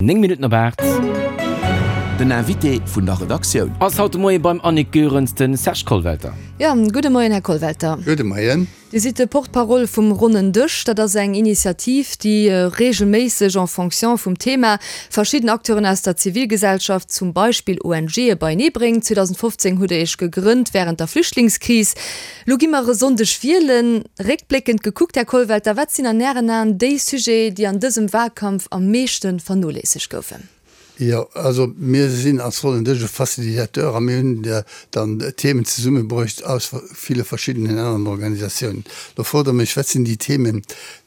9 Minutten op 8. Den Invité vun der Redaktioun. Ass haut de Moie beim Annick Goerens de Serge Kollwelter. Jo, gudde Moien, Här Kollwelter. Gudde Moien. Dir sidd de Porte-parole vum Ronnen Dësch. Dat ass eng Initiativ, déi reegelméisseg, en fonction vum Thema, verschidden Acteuren aus der Zivilgesellschaft, zum Beispill ONGe beienee bréngt. 2015 hutt Der Iech gegrënnt wärend der Flüchtlingskris. Lo gi mer e Sonndeg wielen. Réckbléckend gekuckt, Här Kollwelter, wat sinn an Ären Aen déi Sujete, déi an dësem Wahlkampf am meeschte vernoléissegt goufen? Jo, also mir sinn als Ronnen Dësch e Facilitateur a mir hunn dann Themen zesummebruecht aus ville verschiddenen aneren Organisatiounen. Lo frot Der mech, wat sinn déi Themen,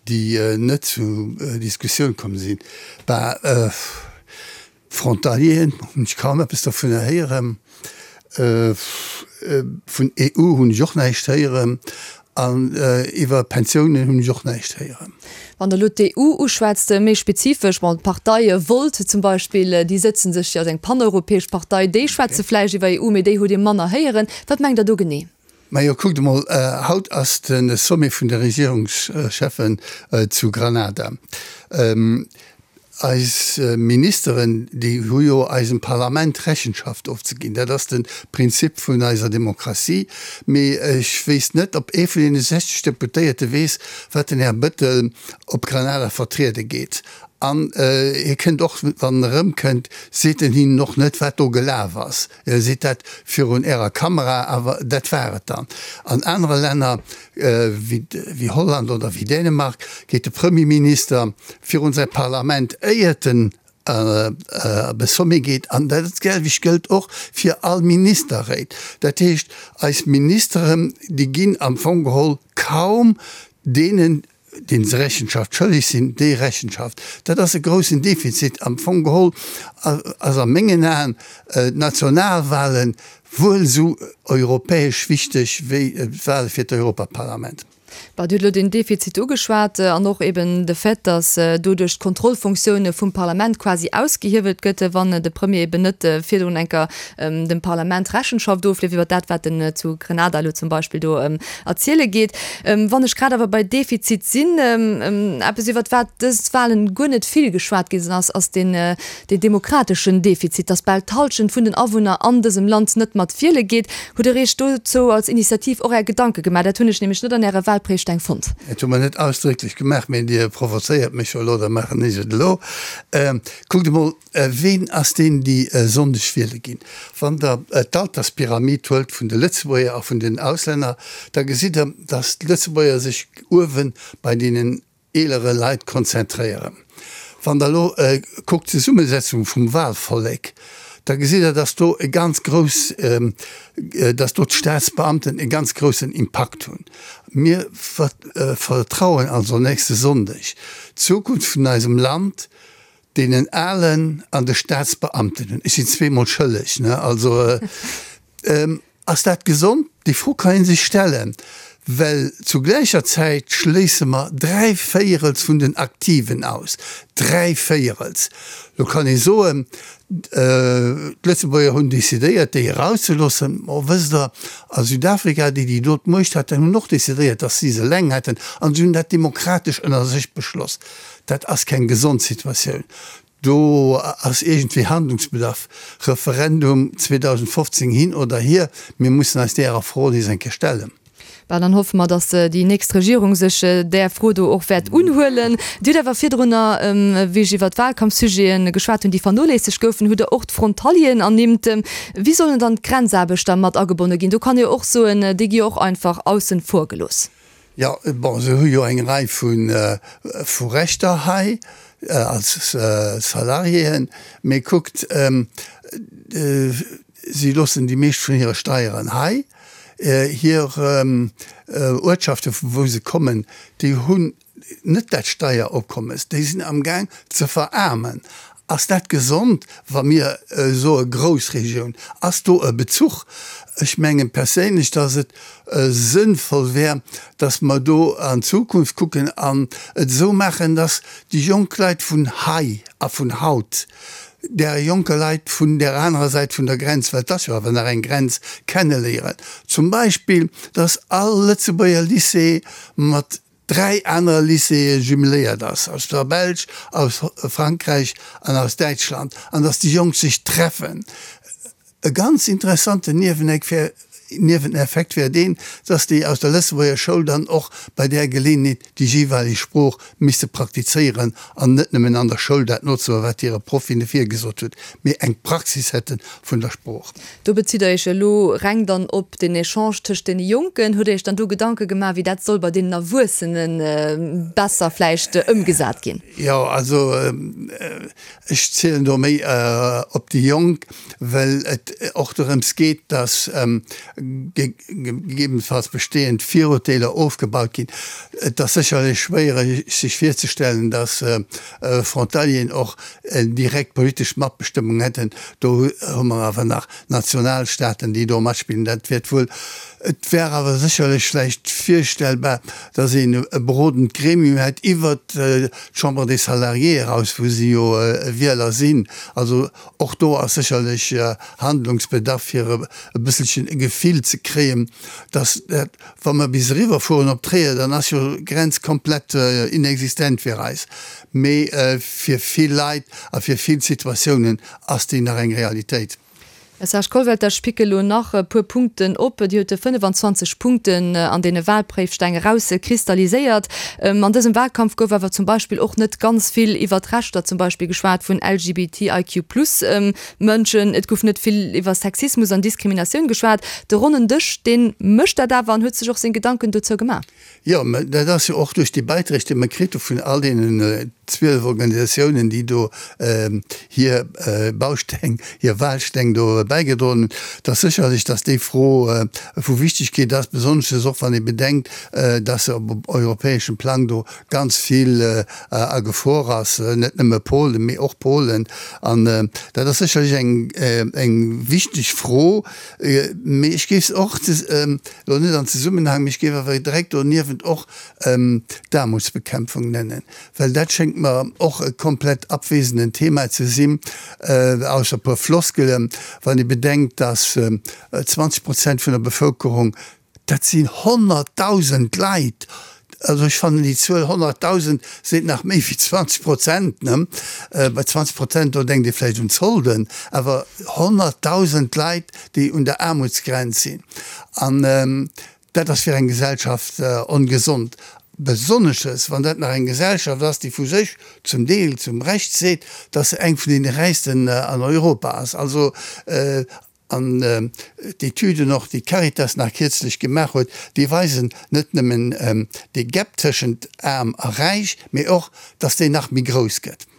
déi net zur Diskussioun komm sinn? Bah, Frontalieren hunn ech kaum eppes dovunner héieren. Vun EU hunn ech och näischt héieren. An iwwer Pensiounen hunn ech och näischt héieren. Wann Der elo d'EU uschwätzt, méi spezifesch, bon, d'Partei Volt zum Beispill, déi sëtze sech jo als eng paneuropäesch Partei, déi schwätze vläicht iwwer EU, mee déi hutt Dir manner héieren. Wat mengt Der do genee? Majo, kuckt emol, haut ass de Sommet vun de Regierungscheffen zu Granada. Eis Ministeren, déi hu jo eisem Parlament Rechenschaft ofzeginn. Dat ass de Prinzip vun eiser Demokratie. Mee ech wéisst net, ob ee vun deene 60 Deputéierte weess, wat den Här Bëttel op Granada vertriede geet. An hie kënnt och, wann en erëmkënnt, seet en hinnen och net, wat do gelaf ass. E seet dat virun Ärer Kamera, awer dat war et dann. An anere Länner wéi Holland oder wéi Dänemark geet de Premierminister virun säi Parlament, éiert en op e Sommet geet. An dat selwecht gëllt och fir all Ministerréit. Dat heescht, eis Ministeren, déi ginn am Fong geholl kaum deenen, deenen se Rechenschaft schëlleg sinn, déi Rechenschaft. Dat ass e groussen Defizit. Am Fong geholl ass a mengen Aen d'Nationalwahlen wuel esou europäesch wichteg wéi d'Wahle fir d'Europaparlament. Bon, Dir hutt elo den Defizit ugeschwat an och eben de Fait, datt doduerch d'Kontrollfunktioun vum Parlament quasi ausgehiewelt gëtt, wann de Premier eben net virdrun eng Kéier dem Parlament Rechenschaft ofleeft iwwer dat, wat en zu Grenada elo zum Beispill do erziele geet. Wann ech grad awer bei Defizit sinn, eppes iwwert wat dës Wahlen guer net vill geschwat gi sinn ass, ass deen demokrateschen Defizit, datt bal d'Halschent vun den Awunner an dësem Land net mat wiele geet. Hutt Der Iech dozou als Initiativ och Är Gedanke gemaach? Dat hunn ech nämlech net an Äre Wahlpréifsteng fonnt. Dat hu mer net ausdrécklech gemaach, mee Dir provozéiert mech jo elo, da maachen ech et elo. Kuckt emol, Ween ass deen, déi e Sonndeg wiele ginn? Wann Der d'Alterspyramid huelt vun de Lëtzebuerger a vun den Auslänner, da gesitt Der, datt d'Lëtzebuerger sech uewe bei deenen eelere Leit konzentréieren. Wann Der elo kuckt d'Zesummesetzung vum Wahlvollek, da gesitt Der, datt do e ganz grouss, datt do d'Staatsbeamten e ganz groussen Impakt hunn. Mir vertrauen also nächste Sonndeg d'Zukunft vun eisem Land Deenen Alen an de Staatsbeamten hunn. Ech sinn zweemol schëlleg, ne? Also, ass dat gesond? Déi Fro kann ee sech stellen, well zu gläicher Zäit schléisse mer dräivéierels vun den Aktiven aus. Dräivéierels! Lo kann ee soen, d'Lëtzebuerger hunn decidéiert, déi erauszeloossen. Mo wësst Der, a Südafrika, déi, déi do d'Muecht haten, hunn och decidéiert, datt si se eleng hätten, an si hunn dat demokratesch ënner sech beschloss. Dat ass keng gesond Situatioun. Do ass iergendwéi Handlungsbedarf. Referendum 2015 hin oder hier, mir mussen eis därer Fro nees eng Kéier stellen. Bah, dann hoffe mer, datt déi nächst Regierung sech där Fro do och wäert unhuelen. Dir hutt awer virdrunner, wéi ech iwwert d'Wahlkampfsujete geschwat hunn, déi vernoléissegt goufen, hutt Der och d'Frontalieren ernimmt. Wéi sollen dann d'Grenzaarbechter mat agebonne ginn? Do kann ee jo och soen, déi gi jo och einfach aussen vor gelooss. Jo, bon, se hu jo eng Rei vu Rechter hei als Salariéen, mee kuckt, si loossen déi meescht vun hire Steieren hei. Hir Uertschaften, vu wou se kommen, déi hunn net dat Steieropkommes, déi sinn amgaang ze veraarmen. Ass dat gesond, wa mir soe Groussregioun? Ass do e Bezuch? Ech menge perséinlech, datt et sënnvoll wär, datt mer do an d'Zukunft kucken an et esou maachen, datt déi jonk Leit vun hei a vun haut där jonke Leit vun där anerer Säit vun der Grenz, well et ass jo awer nach eng Grenz, kenneléieren. Zum Beispill, datt all Lëtzebuerger Lycée mat. dräi anere Lycéeë jumeléiert ass, aus der Belsch, aus Frankräich an aus Däitschland, an datt déi Jonk sech treffen. E ganz interessanten Nieweneffekt wär deen, dass déi aus der Lëtzebuerger Schoul dann och bei där Geleeënheet déi jeeweileg Sprooch misste praktizéieren an net nëmmen an der Schoul dat nozemaachen, wat hire Proff hinne virgesot huet, mee eng Praxis hätte vun der Sprooch. Do bezitt Der Iech elo reng dann op den Echange tëscht deene Jonken. Hutt Der Iech dann do Gedanke gemaach, wéi dat soll bei deenen Erwuessene besser vläicht ëmgesat ginn? Jo, also ech zielen do méi op déi Jonk, well et och dorëms geet, dass gegebenenfalls bestehend Virurteeler ofgebaut ginn. Et ass sécherlech schwéiereg sech virzestellen, dass Frontalieren och direkt politesch Matbestëmmung hätten. Do hu mer awer nach Nationalstaaten, déi do matspillen. Dat wäert wuel, et wär awer sécherlech vläicht virstellbar, dass een e berodend Gremium hätt iwwert d'Chambre des Salariés eraus, wou si jo Wieler sinn. Also Och do ass sécherlech Handlungsbedarf, fir e bësselchen e Gefill ze kréien, dass dat, wa mer bis eriwwerfueren op Tréier, dann ass jo d'Grenz komplett inexistent fir eis. Mee fir vill Leit a fir vill Situatiounen ass déi nach eng Realitéit. Här Serge Kollwelter, ech picke lo nach e puer Punkten op. Dir hutt 25 Punkten an deene Wahlpréifsteng erauskristalliséiert. An dësem Wahlkampf gouf awer zum Beispill och net ganz vill iwwer d'Rechter zum Beispill geschwat vun LGBTIQ plus Mënschen. Et gouf net vill iwwer Sexismus an Diskriminatioun geschwat. De ronnen Dësch, dee mécht dat awer an huet sech och seng Gedanken dozou gemaach. Jo, mä dat ass jo och duerch déi Beiträg, déi mer kritt hu vun all deenen 12 Organisatiounen, déi do hir Bausteng, hir Wahlsteng do bäigedroen hunn, dass sécherlech, dass déi Fro vu Wichtigkeet ass, besonnesches och wann ee bedenkt, dass se op europäeschem Plang do ganz vill a Gefor ass, net nëmme Polen, mee och Polen. An dat ass sécherlech eng, eng wichteg Fro, mee ech géif se och Elo net an Zesummenhang, mee ech géif awer direkt doniewent och d'Aarmutsbekämpfung nennen, well dat schéngt mer och e komplett abwesenden Thema ze sinn, ausser e puer Floskelen, wann ee bedenkt, dass 20 Prozent vun der Bevëlkerung, dat sinn 100.000 Leit, Also ech fannen déi Zuel 100.000 seet nach méi wéi 20 Prozent, ne? Bei 20 Prozent, do denkt ee vläicht un Zolden, awer 100.000 Leit, déi un der Aarmutsgrenz sinn. An dat ass fir eng Gesellschaft ongesond, besonnesches wann dat nach eng Gesellschaft ass, déi vu sech zum Deel zum Recht seet, dass se eng vun deene räichsten an Europa ass. Also An d'Etüden och, déi d'Caritas nach kierzlech gemaach huet, déi weisen net nëmmen dee Gap tëschent aarm a räich, mee och, dass deen nach méi grouss gëtt.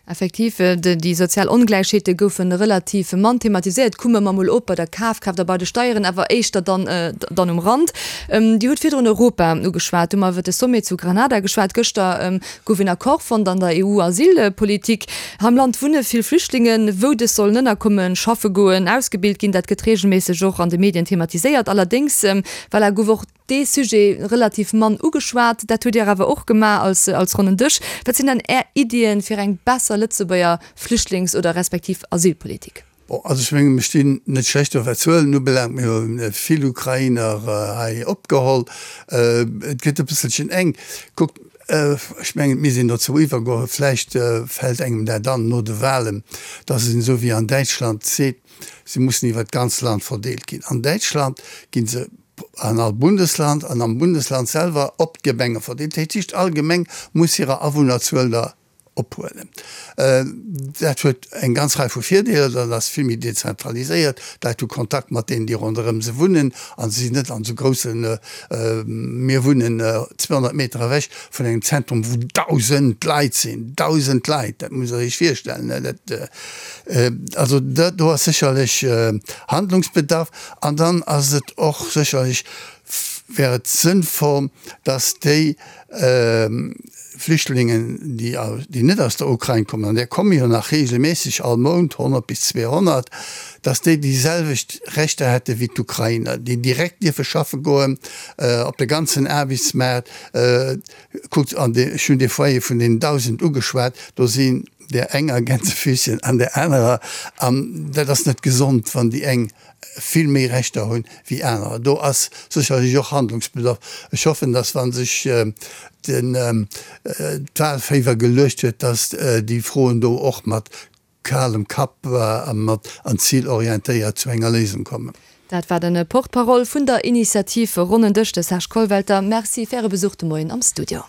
Effektiv, déi sozial Ongläichheete goufe relativ mann thematiséiert. Kumme mer mol op bei der Kafkraaft a bei de Steieren, awer éischter dann dann um Rand. Dir hutt virdrun Europa ugeschwat, du hu mer iwwer de Sommet zu Granada geschwat. Gëschter gouf een Accord fonnt an der EU-Asylpolitik. Hei am Land wunne vill Flüchtlingen. Wou dës sollen ënnerkommen, schaffe goen, ausgebilt ginn, dat gëtt reegelméisseg och an de Medien thematiséiert. Allerdéngs, voilà, gouf och dee Sujet relativ mann ugeschwat. Dat hutt Dir awer och gemaach als, als ronnen Dësch. Wat sinn dann Är Iddien fir eng besser Lëtzebuerger Flüchtlings oder respektiv Asylpolitik? Bon, also ech mengen, mir stinn net schlecht do wat d'Zuelen ubelaangt. Mir hu vill Ukrainer hei opgeholl. Et gëtt e bësselchen enk. Kuckt, ech mengen, et misst een dozou iwwergoen, vläicht fält engem dat an no de Wahlen, datt een esou wéi an Däitschland seet, se mussen iwwer d'ganz Land verdeelt ginn. An Däitschland gi se an all Bundesland an am Bundesland selwer op d'Gemenge verdeelt. Dat heescht, all Gemeng muss hirer Awunnerzuel der ophuelen. Dat huet eng ganz Rei vu Virdeeler, dat ass vill méi dezentraliséiert, d'Leit hu Kontakt mat deenen, déi ronderëm se wunnen a se sinn net an esou groussen, mir wunnen 200 Meter ewech vun engem Zentrum, wou 1.000 Leit sinn, 1.000 Leit, dat musst Der Iech virstellen. Dat, also do ass sécherlech Handlungsbedarf. An dann ass et och sécherlech, wär et sënnvoll, dass déi Flüchtlingen, déi net aus der Ukrain kommen, an där komme jo nach reegelméisseg all Mount 100 bis 200, datt déi déi selwecht Rechter hätte wéi d'Ukrainer, déi direkt dierfe schaffe goen op de ganzen Aarbechtsmaart. Kuckt, an ech hunn dee Foyer vun deenen 1.000 ugeschwat, do si. där enger Gänsefüßchen an där anerer. An dat ass net gesond, wann déi eng vill méi Rechter hunn wéi anerer. Do ass sécherlech och Handlungsbedarf. Ech hoffen, dass wa sech den d'Wahlféiwer geluecht huet, dass déi Froen do och mat kalem Kapp a mat an zilorientéiert zu enger Léisung kommen. Dat war de Porte-parole vun der Initiativ Ronnen Dësch, de Serge Kollwelter. Merci fir Äre Besuch de Moien am Studio.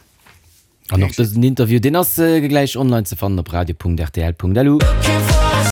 An och dësen Interview, deen ass gläich online ze fannen op radio.rtl.lu.